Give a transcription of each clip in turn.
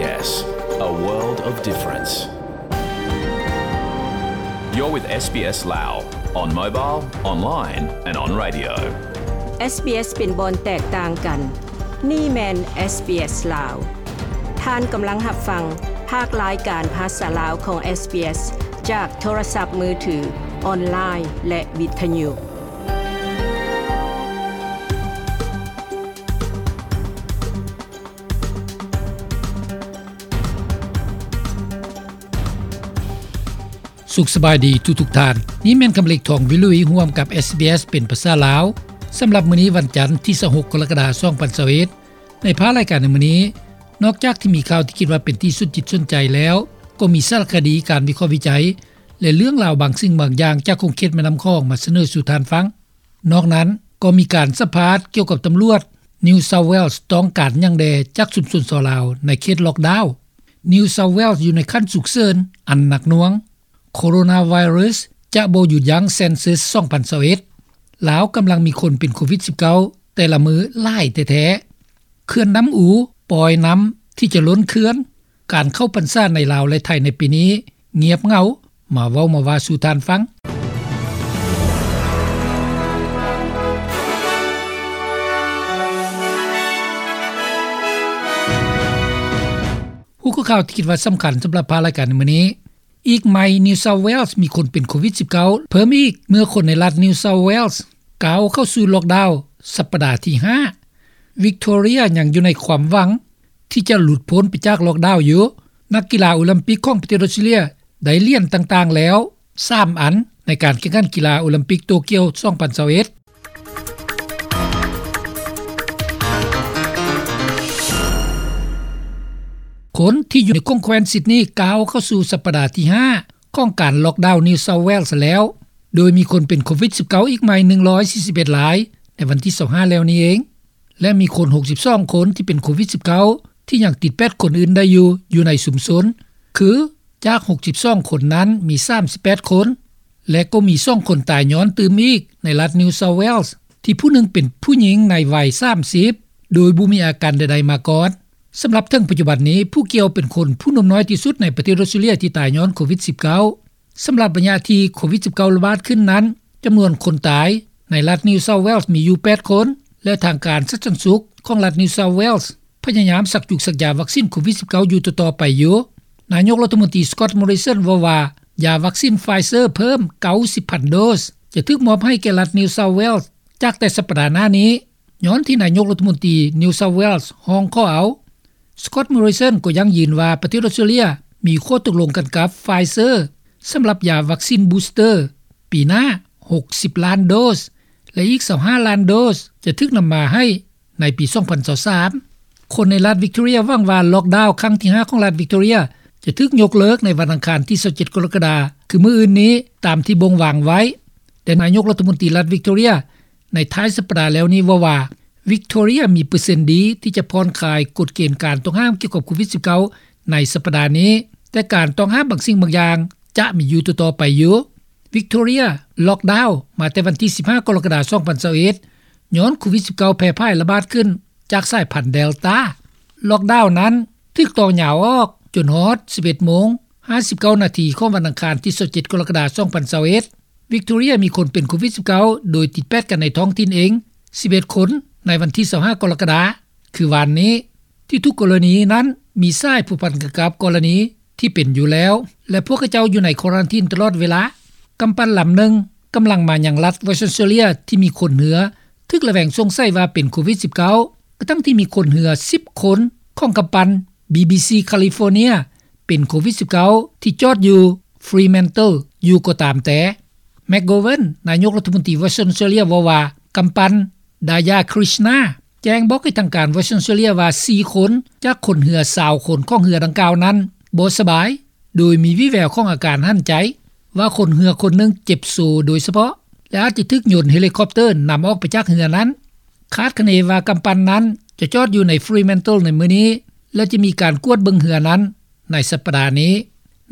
SBS, a world of difference. You're with SBS Lao on mobile, online and on radio. SBS ເປັນບ່ອນແຕກຕ່າງກັນ. ນີ້ແມ່ນ SBS ລາວ. ທ່ານກຳລັງຮັບຟັງພາກລາຍການພາສາລາວຂອງ SBS ຈາກໂທລະສັບມືຖື, ອອນລາຍ ແລະ ວິທະຍຸ. ສຸກສະບາຍດີທຸກໆທ່ານ. ນີ້ແມ່ນຄຳເລັກ ທອງວິລຸຍ ຮ່ວມກັບ SBS ເປັນພາສາລາວ. ສຳລັບມື້ນີ້ ວັນຈັນ ທີຊາວຫົກ ກໍລະກະດາ ສອງພັນຊາວເອັດ ໃນພາກລາຍການໃນມື້ນີ້, ນອກຈາກທີ່ມີຂ່າວທີ່ຄິດວ່າເປັນທີ່ສົນຈິດສົນໃຈແລ້ວ, ກໍມີສາລະຄະດີ, ການວິເຄາະວິໄຈ ແລະ ເລື່ອງລາວບາງສິ່ງບາງຢ່າງຈາກຂົງເຂດແມ່ນ້ຳຂອງມາສະເໜີສູ່ທ່ານຟັງ. ນອກນັ້ນກໍມີການສຳພາດກ່ຽວກັບຕຳຫຼວດ New South Wales ຕ້ອງການຫຍັງແດ່ຈາກຊຸມຊົນຊາວລາວໃນເຂດລັອກດາວ. New South Wales ຢູ່ໃນຂັ້ນສຸກເສີນອັນໜັກໜ່ວງ. ໂຄໂຣນາໄວຣັສຈະບໍ່ຢຸດຢັ້ງ Census ສອງພັນຊາວເອັດ. ລາວກຳລັງມີຄົນເປັນໂຄວິດສິບເກົ້າ ແຕ່ລະມື້ຫຼາຍແທ້ໆ. ເຂື່ອນນ້ຳອູປ່ອຍນ້ຳທີ່ຈະລົ້ນເຂື່ອນ. ການເຂົ້າພັນສາໃນລາວ ແລະ ໄທໃນປີນີ້ງຽບເຫງົາ. ມາເວົ້າມາວ່າສູ່ທ່ານຟັງ. ຫົວຂໍ້ຂ່າວທີ່ຄິດວ່າສຳຄັນສຳລັບພາກລາຍການໃນມື້ນີ້. ອີກໃໝ່ New South Wales ມີຄົນເປັນໂຄວິດສິບເກົ້າເພີ່ມອີກ ເມື່ອຄົນໃນລັດ New South Wales ກ້າວເຂົ້າສູ່ລັອກດາວສັບປະດາທີຫ້າ. Victoria ຍັງຢູ່ໃນຄວາມຫວັງທີ່ຈະຫຼຸດພົ້ນໄປຈາກລັອກດາວຢູ່. ນັກກິລາໂອລິມປິກຂອງປະເທດອອສເຕຣເລຍໄດ້ຫຼຽນຕ່າງໆແລ້ວສາມອັນ ໃນການແຂ່ງຂັນກິລາໂອລິມປິກໂຕກຽວ ສອງພັນຊາວເອັດ. ຄົນທີ່ຢູ່ໃນຂົງແຄວ້ນຊິດນີກ້າວເຂົ້າສູ່ສັບປະດາທີຫ້າຂອງການລັອກດາວ New South Wales ແລ້ວ, ໂດຍມີຄົນເປັນໂຄວິດສິບເກົ້າອີກໃໝ່ໜຶ່ງຮ້ອຍສີ່ສິບເອັດລາຍໃນວັນທີຊາວຫ້າແລ້ວນີ້ເອງ ແລະ ມີຄົນຫົກສິບສອງຄົນທີ່ເປັນໂຄວິດສິບເກົ້າທີ່ຍັງຕິດແປດຄົນອື່ນໄດ້ຢູ່ ຢູ່ໃນຊຸມຊົນ ຄື ຈາກຫົກສິບສອງຄົນນັ້ນມີສາມສິບແປດຄົນ ແລະ ກໍມີສອງຄົນຕາຍຍ້ອນຕື່ມອີກໃນລັດ New South Wales ທີ່ຜູ້ໜຶ່ງເປັນຜູ້ຍິງໃນໄວສາມສິບ ໂດຍບໍ່ມີອາການໃດໆມາກ່ອນ. ສຳລັບເຖິງປັດຈຸບັນນີ້, ຜູ້ກ່ຽວເປັນຄົນຜູ້ໜຸ່ມນ້ອຍທີ່ສຸດໃນປະເທດອອສເຕຣເລຍທີ່ຕາຍຍ້ອນໂຄວິດສິບເກົ້າ. ສຳລັບໄລຍະທີ່ໂຄວິດສິບເກົ້າລະບາດຂຶ້ນນັ້ນ, ຈຳນວນຄົນຕາຍໃນລັດ New South Wales ມີຢູ່ແປດຄົນ ແລະ ທາງການສາທາລະນະສຸກຂອງລັດ New South Wales ພະຍາຍາມສັກຈຸກສັກຢາວັກຊິນໂຄວິດສິບເກົ້າຢູ່ຕໍ່ໆໄປຢູ່. ນາຍົກລັດຖະມົນຕີ Scott Morrison ເວົ້າວ່າ ຢາວັກຊິນ Pfizer ເພີ່ມເກົ້າສິບພັນໂດສ ຈະຖືກມອບໃຫ້ແກ່ລັດ New South Wales ຈາກແຕ່ສັບປະດາໜ້ານີ້, ຍ້ອນທີ່ນາຍົກລັດຖະມົນຕີ New South Wales ຮ້ອງຂໍເອົາ. Scott Morrison ກໍຢັ້ງຢືນວ່າປະເທດອອສເຕຣເລຍມີຂໍ້ຕົກລົງກັນກັບ Pfizer ສຳລັບຢາວັກຊິນ Booster ປີໜ້າຫົກສິບລ້ານໂດສ ແລະ ອີກຊາວຫ້າລ້ານໂດສຈະຖືກນຳມາໃຫ້ໃນປີສອງພັນຊາວສາມ. ຄົນໃນລັດ Victoria ຫວັງວ່າລັອກດາວຄັ້ງທີຫ້າຂອງລັດ Victoria ຈະຖືກຍົກເລີກໃນວັນອັງຄານທີຊາວເຈັດ ກໍລະກະດາ ຄືມື້ອື່ນນີ້ ຕາມທີ່ບົ່ງວາງໄວ້. ແຕ່ນາຍົກລັດຖະມົນຕີລັດ Victoria ໃນທ້າຍສັບປະດາແລ້ວນີ້ເວົ້າວ່າ Victoria ມີເປີເຊັນດີທີ່ຈະຜ່ອນຄາຍກົດເກນການຕ້ອງຫ້າມກ່ຽວກັບໂຄວິດສິບເກົ້າໃນສັບປະດານີ້, ແຕ່ການຕ້ອງຫ້າມບາງສິ່ງບາງຢ່າງຈະມີຢູ່ຕໍ່ໆໄປຢູ່. Victoria ລັອກດາວມາແຕ່ວັນທີສິບຫ້າ ກໍລະກະດາ ສອງພັນຊາວເອັດ ຍ້ອນໂຄວິດສິບເກົ້າແຜ່ຜາຍລະບາດຂຶ້ນຈາກສາຍພັນ Delta. ລັອກດາວນັ້ນຖືກຕໍ່ຍາວອອກຈົນຮອດສິບເອັດໂມງຫ້າສິບເກົ້ານາທີຂອງວັນອັງຄານທີຊາວເຈັດ ກໍລະກະດາ ສອງພັນຊາວເອັດ. Victoria ມີຄົນເປັນໂຄວິດສິບເກົ້າໂດຍຕິດແປດກັນໃນທ້ອງຖິ່ນເອງສິບເອັດຄົນໃນວັນທີຊາວຫ້າ ກໍລະກະດາ ຄືວານນີ້. ທີ່ທຸກກໍລະນີນັ້ນມີສາຍພົວພັນກັນກັບກໍລະນີທີ່ເປັນຢູ່ແລ້ວ ແລະ ພວກເຂົາເຈົ້າຢູ່ໃນຄວາຣັນທີນຕະຫຼອດເວລາ. ກຳປັ່ນລຳໜຶ່ງກຳລັງມາຍັງລັດ Western Australia ທີ່ມີຄົນເຮືອຖືກລະແວງສົງໄສວ່າເປັນໂຄວິດສິບເກົ້າ ກະທັ່ງທີ່ມີຄົນເຮືອສິບຄົນຂອງກຳປັ່ນ BBC California ເປັນໂຄວິດສິບເກົ້າ ທີ່ຈອດຢູ່ Fremantle ຢູ່ກໍຕາມແຕ່. McGovern ນາຍົກລັດຖະມົນຕີ Western Australia ເວົ້າວ່າ ກຳປັ່ນ Daya Krishna ແຈ້ງບອກໃຫ້ທາງການ Western Australia ວ່າສີ່ຄົນຈາກຄົນເຮືອຊາວຄົນຂອງເຮືອດັ່ງກ່າວນັ້ນບໍ່ສະບາຍ ໂດຍມີວິແວວຂອງອາການຫັນໃຈ, ວ່າຄົນເຮືອຄົນໜຶ່ງເຈັບໂຊໂດຍສະເພາະ ແລະ ອາດຈະຖືກຍົນເຮລິຄອບເຕີນຳອອກໄປຈາກເຮືອນັ້ນ. ຄາດຄະເນວ່າກຳປັ່ນນັ້ນຈະຈອດຢູ່ໃນ Fremantle ໃນມື້ນີ້ ແລະ ຈະມີການກວດເບິ່ງເຮືອນັ້ນໃນສັບປະດານີ້.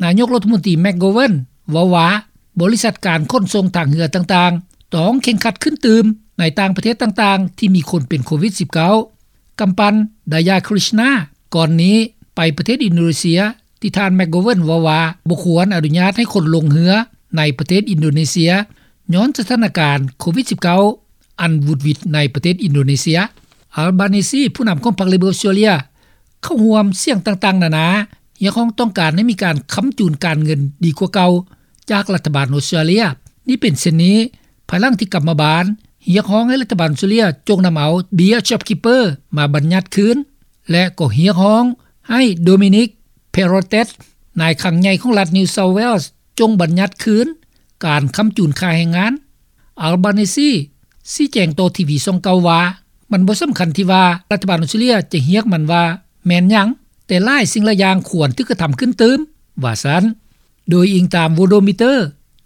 ນາຍົກລັດຖະມົນຕີ McGovern ເວົ້າວ່າ ບໍລິສັດການຂົນສົ່ງທາງເຮືອຕ່າງໆ ຕ້ອງເຄັ່ງຄັດຂຶ້ນຕື່ມໃນຕ່າງປະເທດຕ່າງໆທີ່ມີຄົນເປັນໂຄວິດສິບເກົ້າ. ກຳປັ່ນ Daya Krishna ກ່ອນນີ້ ໄປປະເທດອິນໂດເນເຊຍ ທີ່ທ່ານ McGovern ເວົ້າວ່າ ບໍ່ຄວນອະນຸຍາດໃຫ້ຄົນລົງເຮືອໃນປະເທດອິນໂດເນເຊຍ ຍ້ອນສະຖານະການໂຄວິດ-19 ອັນຫວືດຫວິດໃນປະເທດອິນໂດເນເຊຍ. Albanese ຜູ້ນຳຂອງພັກ Labour ເຂົ້າຮ່ວມສຽງຕ່າງໆນານາ ຮຽກຮ້ອງຕ້ອງການໃຫ້ມີການຄ້ຳຈູນການເງິນດີກວ່າເກົ່າຈາກລັດຖະບານອົດສະຕຣາເລຍ. ນີ້ເປັນເຊັ່ນນີ້ ພາຍຫຼັງທີ່ກັບມາບານ ຮຽກຮ້ອງໃຫ້ລັດຖະບານອົດສະຕຣາເລຍຈົ່ງນຳເອົາເບ້ຍ JobKeeper ມາບັນຍັດຄືນ ແລະ ກໍຮຽກຮ້ອງໃຫ້ Dominic Perrottet ນາຍຄັງໃຫຍ່ຂອງລັດ New South Wales ຈົ່ງບັນຍັດຄືນການຄ້ຳຈູນຄ່າແຮງງານ. Albanese ຊີ້ແຈງຕໍ່ທີວີຊ່ອງເກົ້າວ່າ ມັນບໍ່ສຳຄັນທີ່ວ່າລັດຖະບານອົດສະຕຣາເລຍຈະຮຽກມັນວ່າແມ່ນຫຍັງ, ແຕ່ຫຼາຍສິ່ງຫຼາຍຢ່າງຄວນຖືກກະທຳຂຶ້ນຕື່ມ, ວ່າຊັ້ນ. ໂດຍອີງຕາມ Worldometer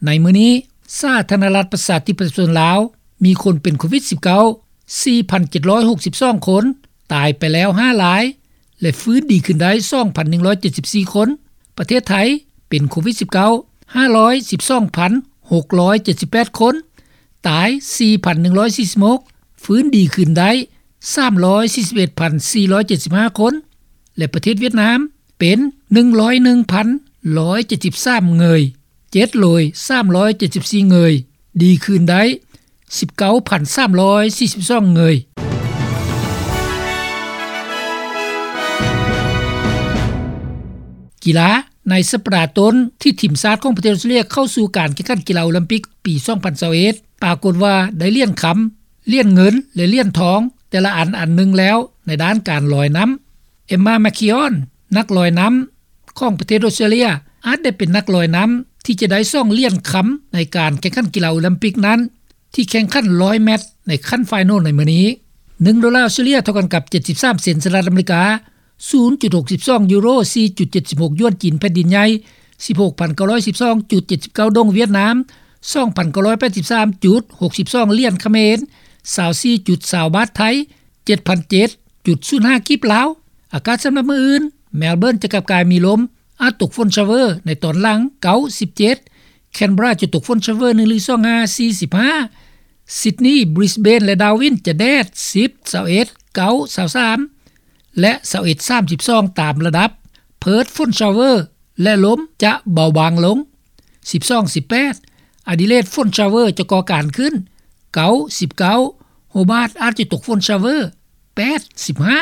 ໃນມື້ນີ້ ສາທາລະນະລັດປະຊາທິປະໄຕປະຊາຊົນລາວ ມີຄົນເປັນໂຄວິດ-19 ສີ່ພັນເຈັດຮ້ອຍຫົກສິບສອງຄົນ, ຕາຍໄປແລ້ວຫ້າລາຍ ແລະ ຟື້ນດີຂຶ້ນໄດ້ສອງພັນໜຶ່ງຮ້ອຍເຈັດສິບສີ່ຄົນ. ປະເທດໄທເປັນໂຄວິດ-19 ຫ້າຮ້ອຍສິບສອງພັນຫົກຮ້ອຍເຈັດສິບແປດຄົນ, ຕາຍສີ່ພັນໜຶ່ງຮ້ອຍສີ່ສິບຫົກ, ຟື້ນດີຂຶ້ນໄດ້ສາມຮ້ອຍສີ່ສິບເອັດພັນສີ່ຮ້ອຍເຈັດສິບຫ້າຄົນ ແລະ ປະເທດຫວຽດນາມເປັນໜຶ່ງຮ້ອຍໜຶ່ງພັນໜຶ່ງຮ້ອຍເຈັດສິບສາມເງີຍ, ເຈັດໂລຍສາມຮ້ອຍເຈັດສິບສີ່ເງີຍ, ດີຄືນໄດ້ສິບເກົ້າພັນສາມຮ້ອຍສີ່ສິບສອງເງີຍ. ກິລາ. ໃນສັບປະດາຕົ້ນທີ່ທີມຊາດຂອງປະເທດອົດສະຕຣາເລຍເຂົ້າສູ່ການແຂ່ງຂັນກິລາໂອລິມປິກປີສອງພັນຊາວເອັດ ປາກົດວ່າໄດ້ຫຼຽນຄຳ, ຫຼຽນເງິນ ແລະ ຫຼຽນທອງ ແຕ່ລະອັນອັນໜຶ່ງແລ້ວໃນດ້ານການລອຍນ້ຳ. Emma McKeon ນັກລອຍນ້ຳຂອງປະເທດອົດສະຕຣາເລຍ ອາດໄດ້ເປັນນັກລອຍນ້ຳທີ່ຈະໄດ້ສອງຫຼຽນຄຳໃນການແຂ່ງຂັນກິລາໂອລິມປິກນັ້ນ ທີ່ແຂ່ງຂັນຮ້ອຍແມັດໃນຂັ້ນໄຟນອລໃນມື້ນີ້. ໜຶ່ງໂດລາອົດສະຕຣາເລຍເທົ່າກັນກັບເຈັດສິບສາມເຊັນສະຫະລັດອາເມລິກາ, ສູນຈຸດຫົກສິບສອງຢູໂຣ, ສີ່ຈຸດເຈັດສິບຫົກຢວນຈີນແຜ່ນດິນໃຫຍ່, ສິບຫົກພັນເກົ້າຮ້ອຍສິບສອງຈຸດເຈັດສິບເກົ້າດົງຫວຽດນາມ, ສອງພັນເກົ້າຮ້ອຍແປດສິບສາມຈຸດຫົກສິບສອງຫຼຽນຂະເໝນ, ຊາວສີ່ຈຸດຊາວບາດໄທ, ເຈັດພັນເຈັດຈຸດສູນຫ້າກີບລາວ. ອາກາດສຳລັບມື້ອື່ນ, ແມລເບີນຈະກັບກາຍມີລົມ, ອາດຕົກຝົນຊາວເວີໃນຕອນຫຼັງ, ເກົ້າສິບເຈັດ, ແຄນເບຣາຈະຕົກຝົນຊາວເວີໜຶ່ງຫຼືສອງຫ້າ, ສີ່ສິບຫ້າ, ຊິດນີ, ບຣິສເບນ ແລະ ດາວິນຈະແດດ, ສິບ, ຊາວເອັດ, ເກົ້າ, ຊາວສາມ ແລະ ຊາວເອັດ, ສາມສິບສອງ ຕາມລະດັບ, ເພີດ ຝົນຊາວເວີ ແລະ ລົມຈະເບົາບາງລົງ, ສິບສອງ, ສິບແປດ, ອາດີເລດ ຝົນຊາວເວີຈະກໍ່ການຂຶ້ນ, ເກົ້າ, ສິບເກົ້າ, ໂຮບາດອາດຈະຕົກຝົນຊາວເວີ, ແປດ, ສິບຫ້າ.